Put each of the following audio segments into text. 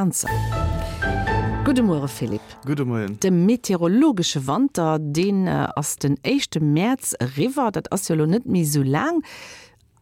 Ernzer. Gudde Muere Philippe. Gudde Moien. De meteorologesche Wanter, deen ass den éischte Mäerz eriwwer. Dat ass jo elo net méi esou laang.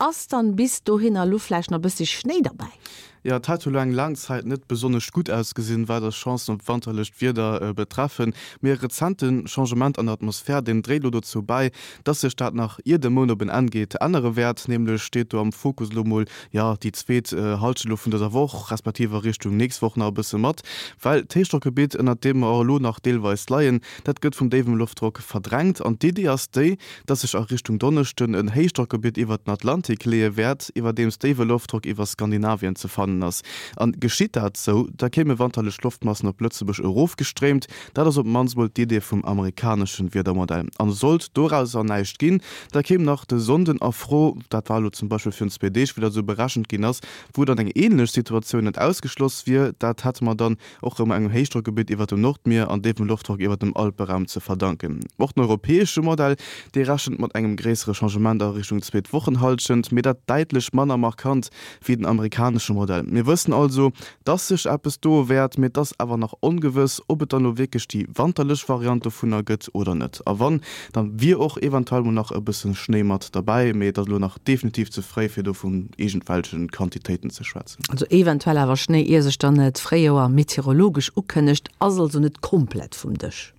Ass dann bis dohinner elo vläicht nach e bëssi Schnéi derbäi? Jo, et hat jo elo eng laang Zäit net besonnesch gutt ausgesinn, wat eis Chancen op wanterlecht Wieder betreffen. Mee e rezente Changement an der Atmosphär, deen dréit elo dozou bäi, dass sech dat nach ier de Mount op en Enn geet ännere wäert. Nämlech steet do am Fokus elo mol, jo, déi zweet Hallschent elo vun dëser Woch, respektiv a Richtung nächst Woch nach e bësse mat, well d'Héichdrockgebitt, ënnert deem mer och elo nach deelweis leien, dat gëtt vum déiwem Loftdrock verdrängt. An d'Iddi ass déi, dass sech a Richtung Donneschden en Héichdrockgebitt iwwert den Atlantik leeë wäert, iwwerdeems déiwe Loftdrock iwwer Skandinavien ze fannen ass. An geschitt dat sou, da kéime wanterlech Loftmassen op Lëtzebuerg erofgestréimt. Dat ass op d'mannst mol d'Idee vum amerikanesche Wiedermodell. An sollt dorauser näischt ginn, da kéim nach de Sonnden a Fro, dat war elo zum Beispill virun zwee Deeg, wéi dat esou berechent ginn ass, wou dann eng änlech Situatioun net ausgeschloss wier. Dat hätte mer dann och rëm engem Héichdrockgebitt iwwert dem Nordmier an déifem Loftdrock iwwert dem Alperaum ze verdanken. Och den europäesche Modell, dee rechent mat engem gréissere Changement a Richtung zweet Wochenhallschent, mee dat däitlech manner markant wéi den amerikanesche Modell. Mir wëssen also, dass sech eppes doe wäert, mee et ass awer nach ongewëss, ob et dann elo wierklech déi wanterlech Variant dovunner gëtt oder net. A wann, dann wier och eventuell mol nach e bësse Schnéi mat derbäi, mee et ass elo nach definitiv ze fréi, fir do vun iergendwelche Quantitéiten ze schwätzen. Also eventuell awer Schnéi ier sech dann d'Fréijoer meteorologesch ukënnegt, ass also net komplett vum Dësch.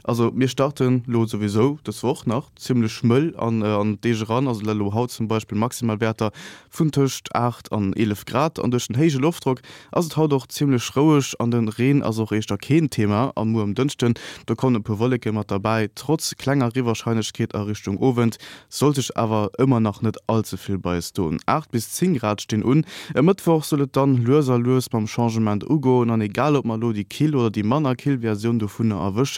Also mir starten lo souwisou dës Woch nach zimmlech mëll an d'Deeg eran, also elo haut zum Beispill Maximalwäerter vun tëscht 8 an 11 Grad. An duerch den héije Loftdrock ass et haut och zimmlech roueg an de Reen ass och éischter keen Thema. A muer um Dënschden, do kommen e puer Wolleke mat derbäi, trotz klenger Reewarscheinlechkeet a Richtung Owend. Sollt sech awer ëmmer nach net all ze vill bei eis doen. 8 bis 10 Grad stinn un. E Mëttwoch soll et dann lues a lues mam Changement ugoen an egal ob mer elo déi kill oder déi manner kill Versioun dovunner erwëschen,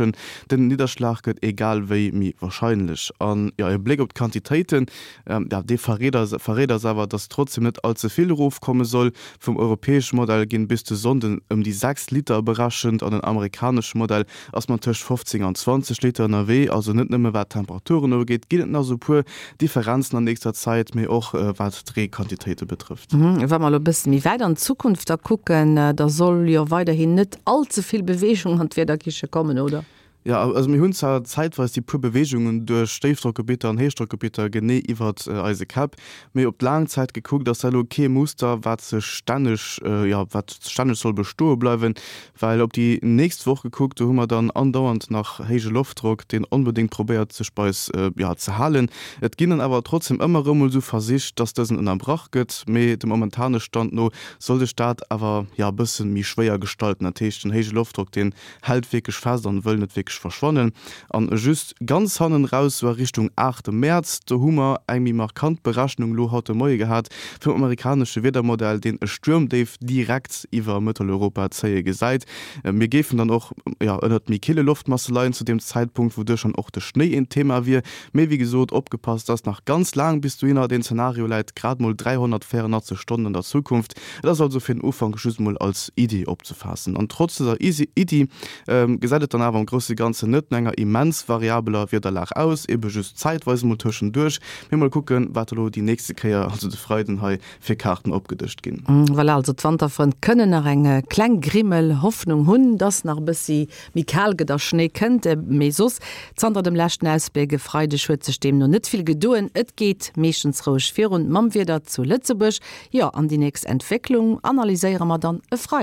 den Nidderschlag gëtt egal wéi méi warscheinlech. An jo, e Bléck op d'Quantitéiten, jo dee verreet eis verréit eis awer, dass trotzdem net all ze vill erofkomme soll. Vum europäesche Modell ginn bis de Sonnden ëm déi 6 Liter berechent an den amerikanesche Modell ass mat tëscht 15 an 20 Liter ënnerwee. Also net nëmme wat d'Temperaturen ugeet, ginn et nach esou puer Differenzen an nächster Zäit, mee och wat d'Reequantitéite betrëfft. Wa mer elo e bësse méi wäit an d'Zukunft da kucken, da soll jo weiderhin net all ze vill Beweegung an d'Wiederkiche kommen, oder? Jo, also mir hunn zwar zäitweis déi puer Beweegungen duerch Déifdrockgebitter an Héichdrockgebitter genee iwwert eise Käpp, mee op d'laang Zäit gekuckt ass dat elo kee Muster, wat sech stänneg, jo, wat stänneg soll bestoe bleiwen. Well op déi nächst Woch gekuckt, do hu mer dann andauernd nach héije Loftdrock, deen onbedéngt probéiert sech bei eis, jo, ze halen. Et ginn dann awer trotzdem ëmmer erëm mol esou Versich, dass dësen ënnerbrach gëtt, mee dem momentane Stand no soll sech dat awer, jo, e bësse méi schwéier gestalten. Dat heescht, den héije Loftdrock, deen hält wierklech fest an wëll net wierklech verschwannen. An just ganz hannen raus, sou a Richtung 8 Mäerz, do hu mer eng méi markant Berechnung elo haut de Moie gehat vum amerikanesche Wiedermodell, deen e Stuermdéif direkt iwwer Mëtteleuropa zéie gesäit. Mir géifen dann och, jo, ënnert méi kille Loftmasse leien zu deem Zäitpunkt, wouduerch dann och de Schnéi een Thema wier. Mee wéi gesot, opgepasst, et ass nach ganz laang bis dohinner, deen Zenario läit grad mol 384 Stonnen an der Zukunft. Et ass also fir den Ufank just mol als Iddi opzefaassen. An trotz dëser Iddi gesäit et dann awer am grousse Ganzen net no enger immens variabeler Wiederlag aus, ebe just zäitweis mol tëschenduerch. Mee mol kucken, wat elo déi nächste Kéier, also de Freiden hei, fir Kaarten opgedëscht ginn. Voilà, also d'Wanterfrënn kënnen nach eng kleng Grimmel Hoffnung hunn, dass nach e bëssi méi kal gëtt a Schnéi kënnt. Mee soss, zanter dem leschten Ausbléck e Freideg huet sech deemno net vill gedoen. Et geet meeschtens roueg virun mam Wieder zu Lëtzebuerg. Jo, an déi nächst Entwécklung analyséiere mer dann e Freideg.